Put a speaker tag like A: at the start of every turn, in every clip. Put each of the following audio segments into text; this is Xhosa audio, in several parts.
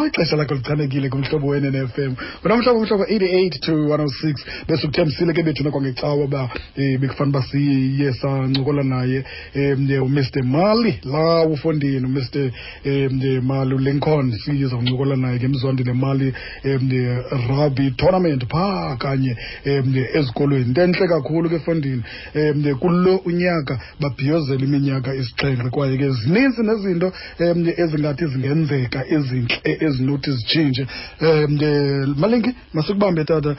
A: Ixesha lakho lichanekile kuMhlobo weNNFM. Wena mhlobo, mhlobo 88 to 106. Besikuthembisile ke bethuna kwangecawa uba bekufanele uba siye sancokola naye uMr Mali la ufondini, uMr Mali uLincoln, sizawuncokola naye ngeMzwandile Mali rugby tournament phaa kanye ezikolweni. Into entle kakhulu ke fondini, kulo unyaka babhiyozela iminyaka 7, kwaye ke zininzi nezinto ezingathi zingenzeka ezintle ezinothi zitshintshe. Malinki, masikubambe tata,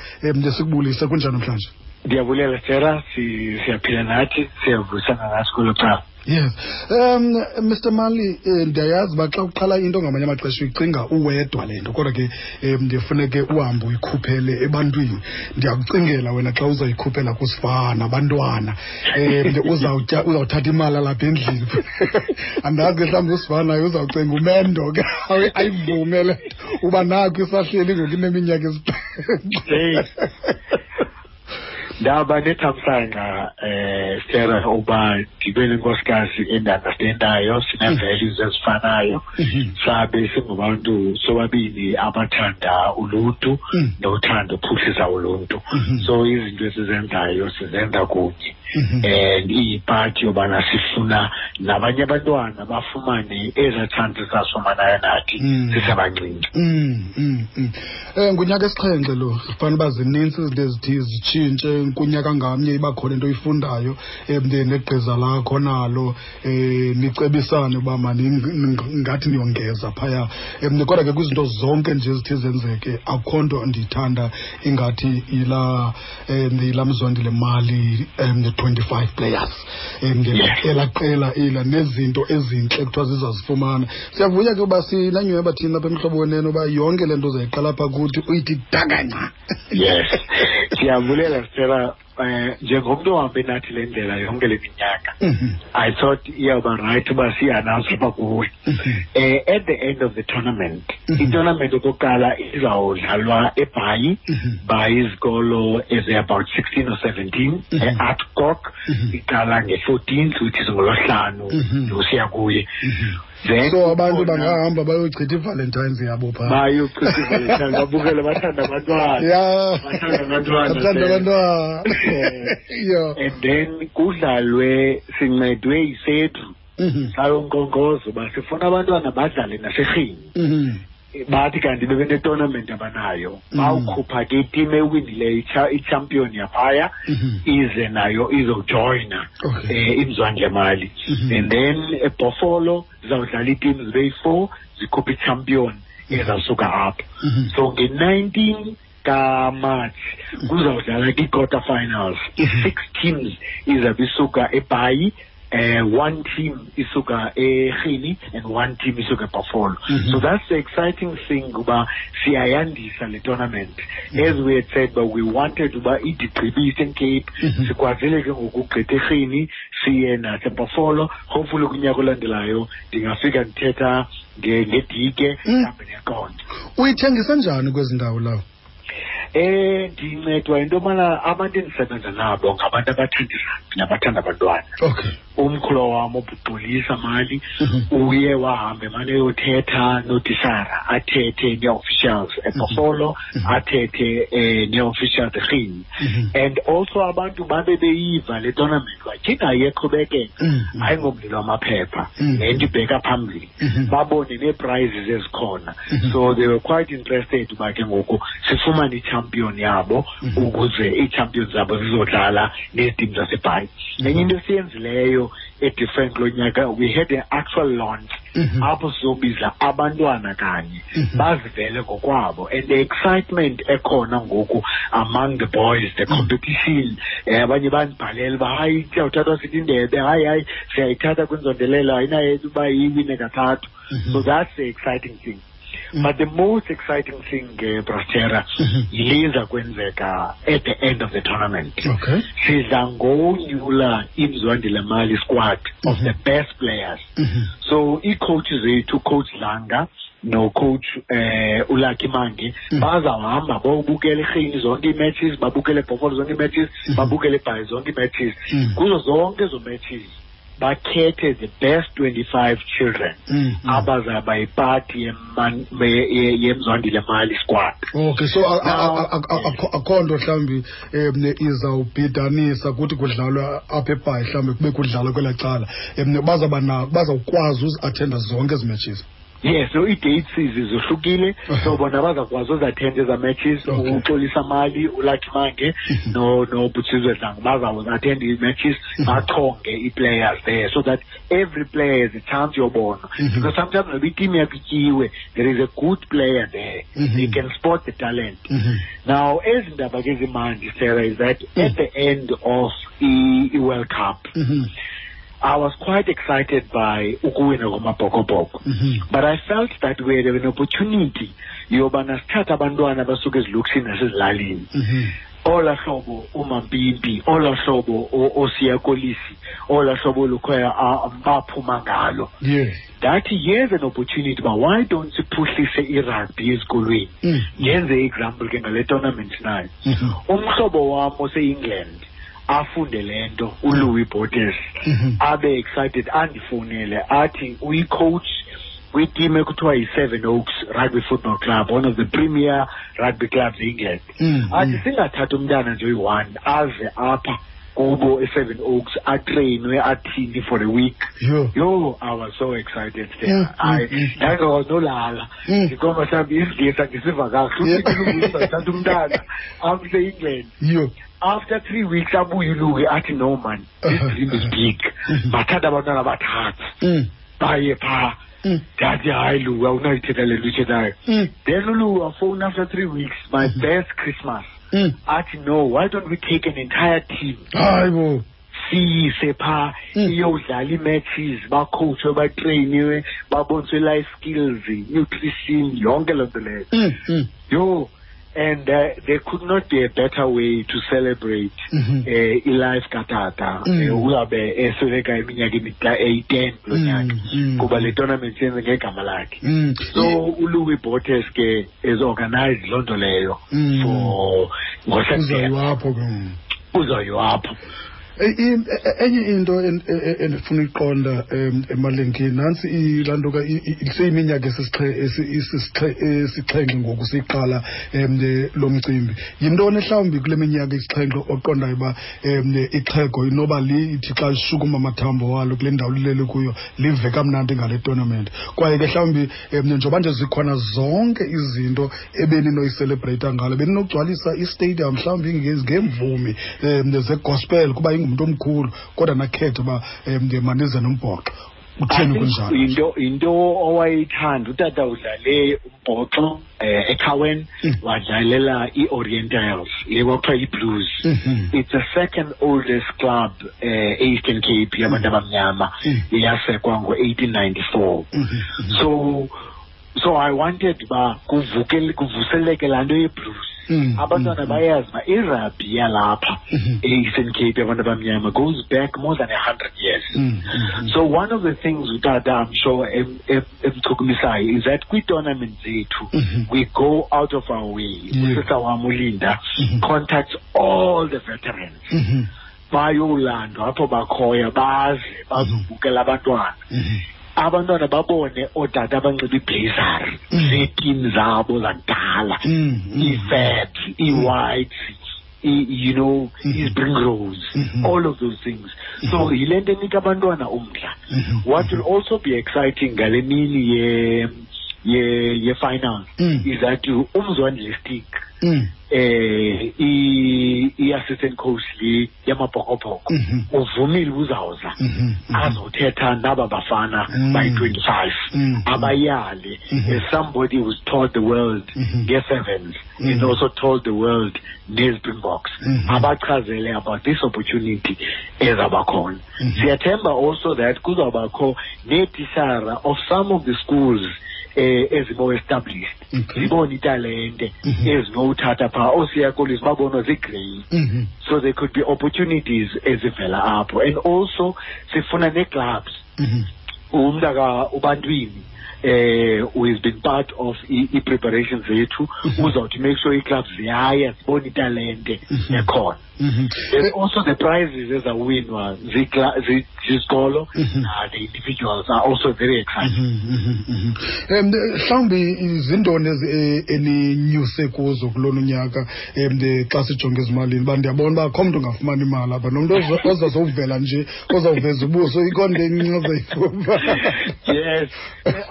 A: sikubulise. Kunjani namhlanje?
B: Ndiyabulela Sarah, siyaphila nathi, siyavuyisana nathi kwelo cala.
A: Yes. Mr Mali, ndiyayazi uba xa uqala into ngamanye amaxesha uyicinga uwedwa le nto, kodwa ke ndifuneke uhambe uyikhuphele ebantwini. Ndiyakucingela wena xa uzayikhuphela kusifana abantwana, uzawuthatha imali alapha endlini. Andazi ke mhlawumbi usifana naye uzawucinga umendo ke ayivume le nto uba nakho isahleli ngoku ineminyaka 7.
B: Ndaba nethamsanqa Sarah uba ndibe nenkosikazi endiunderstandayo, sine-values ezifanayo, sabe singabantu sobabini abathanda uluntu nothanda uphuhlisa uluntu. So izinto esizenzayo sizenza kunye, and iyipati yobana sifuna nabanye abantwana bafumane ezaa chances sasifumanayo nathi sisebancinci.
A: Ngunyaka 7 lo, zifanele uba zinintsi izinto ezithi zitshintshe kunyaka ngamnye, iba khona into oyifundayo, negqiza lakho nalo, nicebisane uba ngathi niyongeza phaya. Kodwa ke kwizinto zonke nje ezithi zenzeke, akukho nto ndiyithanda ingathi yila Mzwandile Mali 25 players. Elaa qela ela nezinto ezintle kuthiwa zizazifumana. Siyavuya ke uba sinanyhweba thina apha eMhlobo Wenene uba yonke le nto uzayiqala apha kuthi uyithi dakanca.
B: Yes, siyabulela Sarah. Njengomntu ohambe nathi le ndlela yonke le minyaka, I thought iyawuba right uba siyi-announce apha kuwe. At the end of the tournament, i-tournament okokuqala izawudlalwa eBhayi by izikolo ezi-about 16 or 17, e-Adcock, iqala nge-14th, which is ngolwesihlanu, usiya kuye. Then
A: so abantu bangahamba bayochitha iValentines yabo phaa.
B: Bayochitha iValentines, babukele, bathanda abantwana. Bathanda abantwana.
A: Bathanda abantwana.
B: And then kudlalwe, sincedwe yiSEDRU. Sayonkqonkqoza uba sifuna abantwana badlale naseRhini. Bathi kanti bebene-tournament abanayo. Bawukhupha ke iteam ewinileyo, i-champion yaphaya, ize nayo izojoyina, iMzwandile Mali. And then eBhofolo zizawudlala ii-teams zibe yi-4, zikhuphe i-champion ezawusuka apho. So nge-19 kaMarch kuzawudlala kwi-quarter finals. I-6 teams izabe isuka eBhayi, 1 team isuka eRhini and 1 team isuka eBuffalo. So that's the exciting thing uba siyayandisa le tournament. As we had said, but we wanted uba idigqibe Eastern Cape, sikwazile ke ngokugqitha eRhini siye naseBuffalo. Hopefully kunyaka olandelayo ndingafika ndithetha ngedike, mhlawumbi neqonda.
A: Uyithengisa njani kwezi ndawo lawo?
B: Ndincedwa yinto yobana abantu endisebenza nabo ngabantu abathanda irugby nabathanda abantwana. Umkhulu wam uBuxolisa Mali uye wahamba emane eyothetha notisara, athethe nee-officials eBhofolo, athethe nee-officials eRhini. And also abantu babe beyiva le tournament batyhinga iyeqhubekeka, ayingomlilo wamaphepha, le nto ibheka phambili. Babone nee-prizes ezikhona. So they were quite interested uba ke ngoku sifumane i-champion yabo, ukuze ii-champions zabo zizodlala neetim zaseBhayi. Enye into esiyenzileyo e-different kulo nyaka, we had an actual launch apho sizobiza abantwana kanye bazivele ngokwabo, and the excitement ekhona ngoku among the boys, the competition, abanye bandibhalela uba hayi siyawuthathwa sithi indebe, hayi hayi siyayithatha kwinzondelelo, ayinayo uba iwine kathathu. So that's the exciting thing. But the most exciting thing, Brastera, yile kwenzeka at the end of the tournament. Sidla ngonyula iMzwandile Mali squad of the best players. So ii-coaches zethu, Coach Langa no-coach uLucky Mangi, bazawuhamba bawubukela eRhini zonke ii-matches, babukele eBhofolo zonke ii-matches, babukele eBhayi zonke ii-matches. Kuzo zonke ezo matches Bakhethe the best 25 children abazaba yipati yeMzwandile Mali squad.
A: Okay, so akho nto mhlawumbi izawubhidanisa kuthi kudlalwa apha eBhayi, mhlawumbi kube kudlalwa kwelaa cala, bazawukwazi uzi-attenda zonke ezi matches.
B: Yes, so ii-dates zohlukile, so bona bazakwazi uzi-attenda eza matches. UXolisa Mali, uLucky Mange noButsizwe Dlango bazawuzi-attenda ii-matches, bachonge ii-players there so that every player has a chance yobona. Because sometimes noba iteam yakho ityiwe, there is a good player there. They can spot the talent. Now, ezi ndaba ke zimandi, Sarah, is that at the end of i-World Cup, I was quite excited by ukuwina kwamaBhokobhoko. But I felt that we had an opportunity yobana sithathe abantwana abasuka ezilokishini nasezilalini. Olaa hlobo uMampimpi, olaa hlobo oSiya Kolisi, olaa hlobo Lukhoya baphuma ngalo. Ndathi here's an opportunity, but why don't siphuhlise irugby ezikolweni? Ndenze example ke ngale tournament nayo. Umhlobo wam ose-England afunde le nto, uLouis Botes, abe excited, andifowunele athi uyi-coach kwiteam ekuthiwa yi-Seven Oaks Rugby Football Club, one of the premier rugby clubs e-England. Athi singathatha umntana nje oyi-one aze apha kubo e-Seven Oaks atrainwe athini for a week. Yo, I was so excited there. Ndangakwazi nolala. Ndikhomba mhlawumbi isiNgesi andisiva kakuhle. Uthatha umntana amse e-England. After 3 weeks abuye uLouis athi no man, this dream is big. Bathatha abantwana abathathu. Baye phaa. Ndathi hayi Louis, awunayithetha le nto uyithethayo. Then uLouis wafowuna after 3 weeks, my best Christmas. Athi no, why don't we take an entire team?
A: Hayi bo.
B: Siyise phaa, iyodlala ii-matches, bakhowutshwe, batreyiniwe, baboniswe life skills, nutrition, yonke loo nto leyo. Yho, and there could not be a better way to celebrate i-life katata. Uzabe esweleka iminyaka eyi-10 kulo nyaka, kuba le tournament yenze ngegama lakhe. So uLouis Botes ke is organized loo nto leyo for ngoSeptember.
A: Uzoyiwa apho ke.
B: Uzoyiwa apho.
A: Enye into endifuna uyiqonda, Malinki, nantsi laa nto ka seyiminyaka esixhenxe ngoku siyiqala lo mcimbi. Yintoni mhlawumbi kule minyaka isixhenxe oqondayo uba ixhego inoba lithi xa lishukuma amathambo walo kule ndawo lilele kuyo live kamnandi ngale tournament? Kwaye ke mhlawumbi njengoba nje zikhona zonke izinto ebeninoyicelebreyitha ngalo, beninogcwalisa istadium mhlawumbi ngeemvumi zegospel kuba ingumntu omkhulu, kodwa nakhetha uba manize nombhoxo. Utheni kunjalo?
B: Into owayithanda utata, udlale umbhoxo eCowan, wadlalela i-Orientals, le kwakuthiwa i-Blues. It's the second oldest club e-Eastern Cape yabantu abamnyama, yasekwa ngo-1894. So I wanted uba kuvuseleke laa nto ye-Blues. Abantwana bayazi uba irugby yalapha e-Eastern Cape yabantu abamnyama goes back more than 100 years. So one of the things utata, I'm sure, emchukumisayo is that kwii-tournament zethu, we go out of our way. Usista wam uLinda contacts all the veterans. Bayolandwa apho bakhoyo, baze bazobukela abantwana. Abantwana babone ootata abanxiba iiblazer zeeteam zabo zakudala, ii-Fabs, ii-Whites, ii-Springrose, all of those things. So yile nto enika abantwana umdla. What will also be exciting ngale mini ye-finals is that uMzwandile Stick, i-assistant coach le yamaBhokobhoko, uvumile uzawuza azothetha naba bafana bayi-25, abayale, as somebody who's taught the world nge-sevens and also told the world ne-Springboks, abachazele about this opportunity ezabakhona. Siyathemba also that kuzawubakho neetishara of some of the schools ezimo established, zibone italente ezinowuthatha phaa ooSiya Kolisi babonwa zii-grade. So there could be opportunities ezivela apho. And also sifuna nee-clubs. Umntaka ubantwini who has been part of i-preparations zethu, uzawuthi make sure ii-clubs ziyaya zibone italente ekhona. There's also the prizes ezawinwa zizikolo. The individuals are also very excited.
A: Mhlawumbi zintoni eninyuse kuzo kulona unyaka xa sijonge ezimalini? Uba ndiyabona uba akho mntu ungafumani imali apha, nomntu ozazowuvela nje, ozawuveza ubuso, ikhona into encinci ozayifumana.
B: Yes,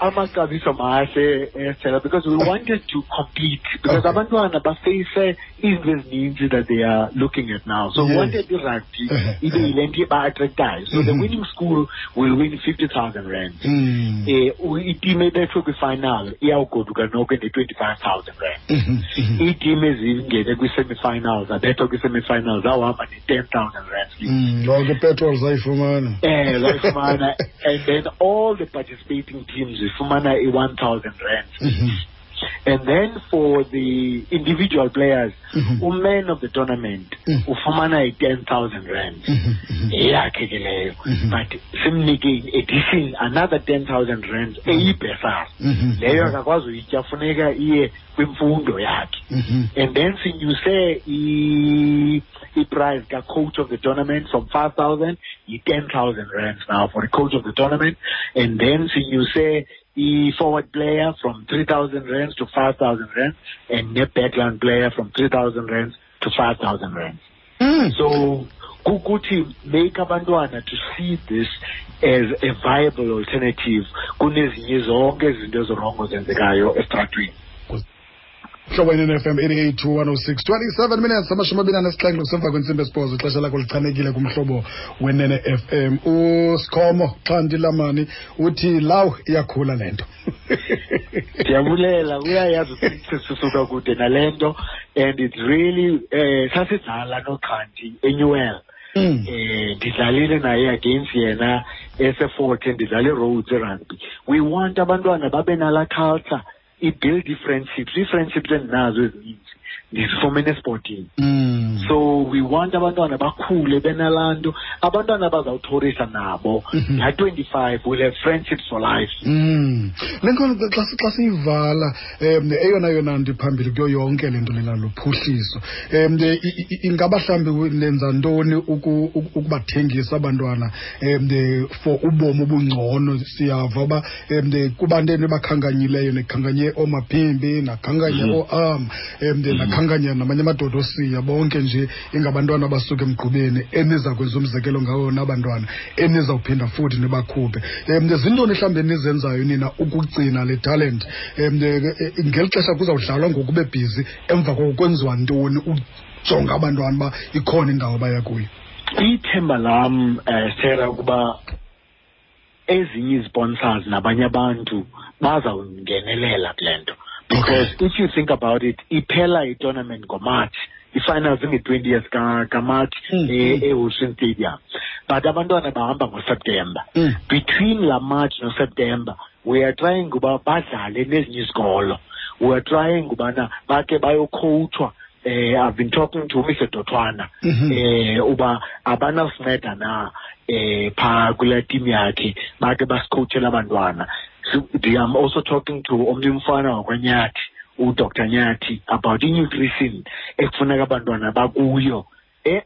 B: amaxabiso mahle, Stella, because we wanted to compete, because abantwana bafeyise izinto ezininzi that they are looking at now. So we wanted i-rugby ibe yile nto iba-attractayo. So the winning school will win 50,000 rand. Iteam ebethwe kwi-final iyawugoduka noko ne-25,000 rand. Iiteam ezingene kwi-semi-finals, abethwa kwi-semi-finals, awuhamba ne-10,000 rand.
A: Lonke ipetrol zayifumana.
B: Zayifumana. And then all the participating teams zifumana i-1,000 rand. And then for the individual players, uman of the tournament ufumana i-10,000 rand. Eyakhe ke leyo. But simnike in addition another 10,000 rand eyibhesari. Leyo akakwazi uyitya, funeka iye kwimfundo yakhe. And then sinyuse i-prize ka-coach of the tournament from 5,000 yi-10,000 rands now for the coach of the tournament. And then sinyuse i-forward player from 3,000 rands to 5,000 rands, and the backline player from 3,000 rands to 5,000 rands. So kukuthi make abantwana to see this as a viable alternative kunezinye zonke izinto ezirongo zenzekayo estratweni.
A: Hlobo NFM 88 to 106, 27 minutes, 27 kusemva kwentsimbi esibhozo, ixesha lakho lichanekile kumhlobo wenene FM. USikhomo Xhanti Lamani uthi law iyakhula le nto.
B: Ndiyabulela, uyayazi ukuthi sisuka kude nale nto, and it's really sasidlala noXhanti eNewell. Ndidlalile naye against yena ese-14, ndidlala i-Rhodes rugby. We want abantwana babe nala culture, i-build i-friendships, ii-friendships endinazo ezininzi ndizifumene esportini. So we want abantwana bakhule benalaa nto, abantwana bazawuthorisa nabo laa 25 will have friendships for life.
A: Le nto xa siyivala, eyona yona nto iphambili kuyo yonke le nto lena luphuhliso. Ingaba mhlawumbi nenza ntoni ukubathengisa abantwana for ubomi obungcono? Siyava uba kubantu enibakhankanyileyo, nikhankanye ooMaphimbi, nakhankanye ooAm, nakhankanya namanye amadoda osiya, bonke nje ingabantwana abasuka emgqubeni eniza kwenza umzekelo ngawo nabantwana enizawuphinda futhi nibakhuphe. Zintoni mhlawumbi enizenzayo nina ukugcina le talent ngeli xesha kuzawudlalwa ngoku bebhizi, emva koko kwenziwa ntoni ujonga abantwana uba ikhona indawo abaya kuyo?
B: Ithemba lam, Sarah, ukuba ezinye izisponsors nabanye abantu bazawungenelela kule nto. Because if you think about it, iphela i-tournament ngoMarch, i-finals inge-20th kaMarch eWilson Stadium. But abantwana bahamba ngoSeptember. Between la March noSeptember, we are trying uba badlale nezinye izikolo. We are trying ubana bake bayocoachwa. I've been talking to Mr. Dotwana, uba abanasinceda na phaa kule team yakhe, bake basicoachele abantwana. So, I'm also talking to omnye umfana wakwaNyathi, uDr Nyathi, about i-nutrition ekufuneka abantwana bakuyo.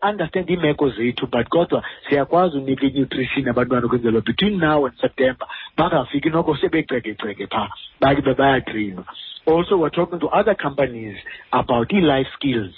B: Understand iimeko zethu, but kodwa siyakwazi unika i-nutrition abantwana ukwenzela between now and September bangafiki noko sebecekeceke phaa, bake bayatrainwa. Also, we're talking to other companies about i-life skills.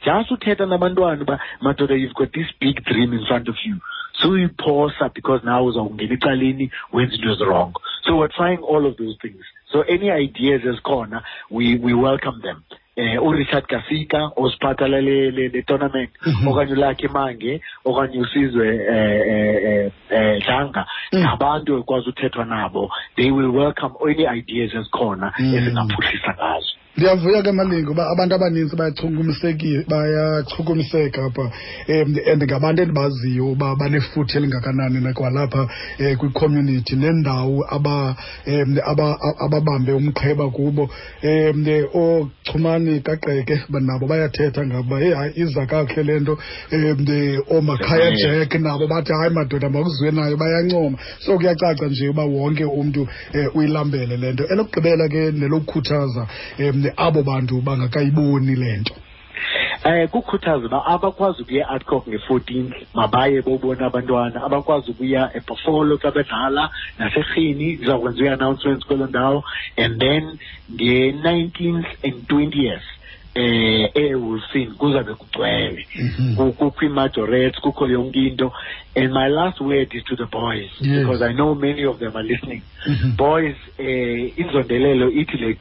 B: Just uthetha nabantwana uba, madoda, you've got this big dream in front of you. So you pause because now uzawungena ecaleni wenza into wrong. So we're trying all of those things. So any ideas ezikhona, we welcome them. uRichard Kasika osiphatha le tournament, okanye uLucky Mange, okanye uSizwe Dlanga, ngabantu ekwazi uthethwa nabo. They will welcome any ideas ezikhona ezingaphuhlisa ngazo.
A: Ndiyavuya ke Malinga uba abantu abaninzi bayachukumiseka apha, and ngabantu endibaziyo uba banefuthe elingakanani nakwalapha kwicommunity nendawo ababambe umqheba kubo. Oochumani kaQeke nabo bayathetha ngabo uba heyi hayi iza kakuhle le nto. Oomakhaya Jack nabo bathi hayi madoda makuziwe nayo, bayancoma. So kuyacaca nje uba wonke umntu uyilambele le nto. Elokugqibela ke nelokukhuthaza abo bantu bangakayiboni le nto.
B: Kukhuthaza uba abakwazi ukuya e-Adcock nge-14th mabaye bobona abantwana, abakwazi ukuya eBuffalo xa bedlala naseRhini, zizawukwenziwa i-announcements kwelo ndawo, and then nge-19th and 20th eWilson kuzabe kugcwele. Kukho ii-majorettes, kukho yonke into. And my last word is to the boys, because I know many of them are listening. Boys, inzondelelo ithi le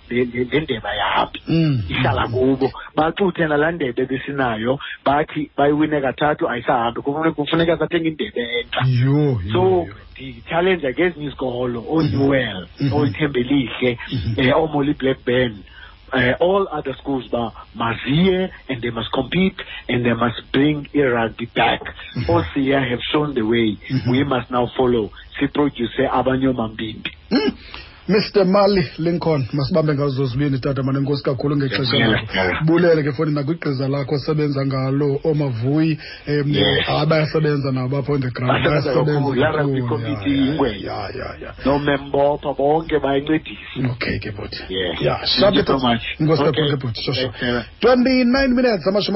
B: ndebe ayihambi, ihlala kubo. Baxuthe nalaa ndebe besinayo, bathi bayiwine kathathu ayisahambi, kufuneka sathenge indebe entsha. So ndi-challenge ke ezinye izikolo, ooNewell, ooThembelihle, ooMolly Blackburn, all other schools ba maziye, and they must compete and they must bring rugby back. Osiya have shown the way. We must now follow. Siproduce abanye omambimbi.
A: Mr. Mali Lincoln, masibambe ngazo zibini tata, mane nkosi kakhulu ngexesha lakho. Bulele ke foni nakwigqiza lakho osebenza ngalo omavuyi, abayasebenza nabo apha on the ground.
B: Bayasebenza kakhulu. Nomembopha bonke bayancedisa.
A: Okay ke bhuti. Yeah, thank you so much. Nkosi kakhulu ke bhuti. 29 minutes 20.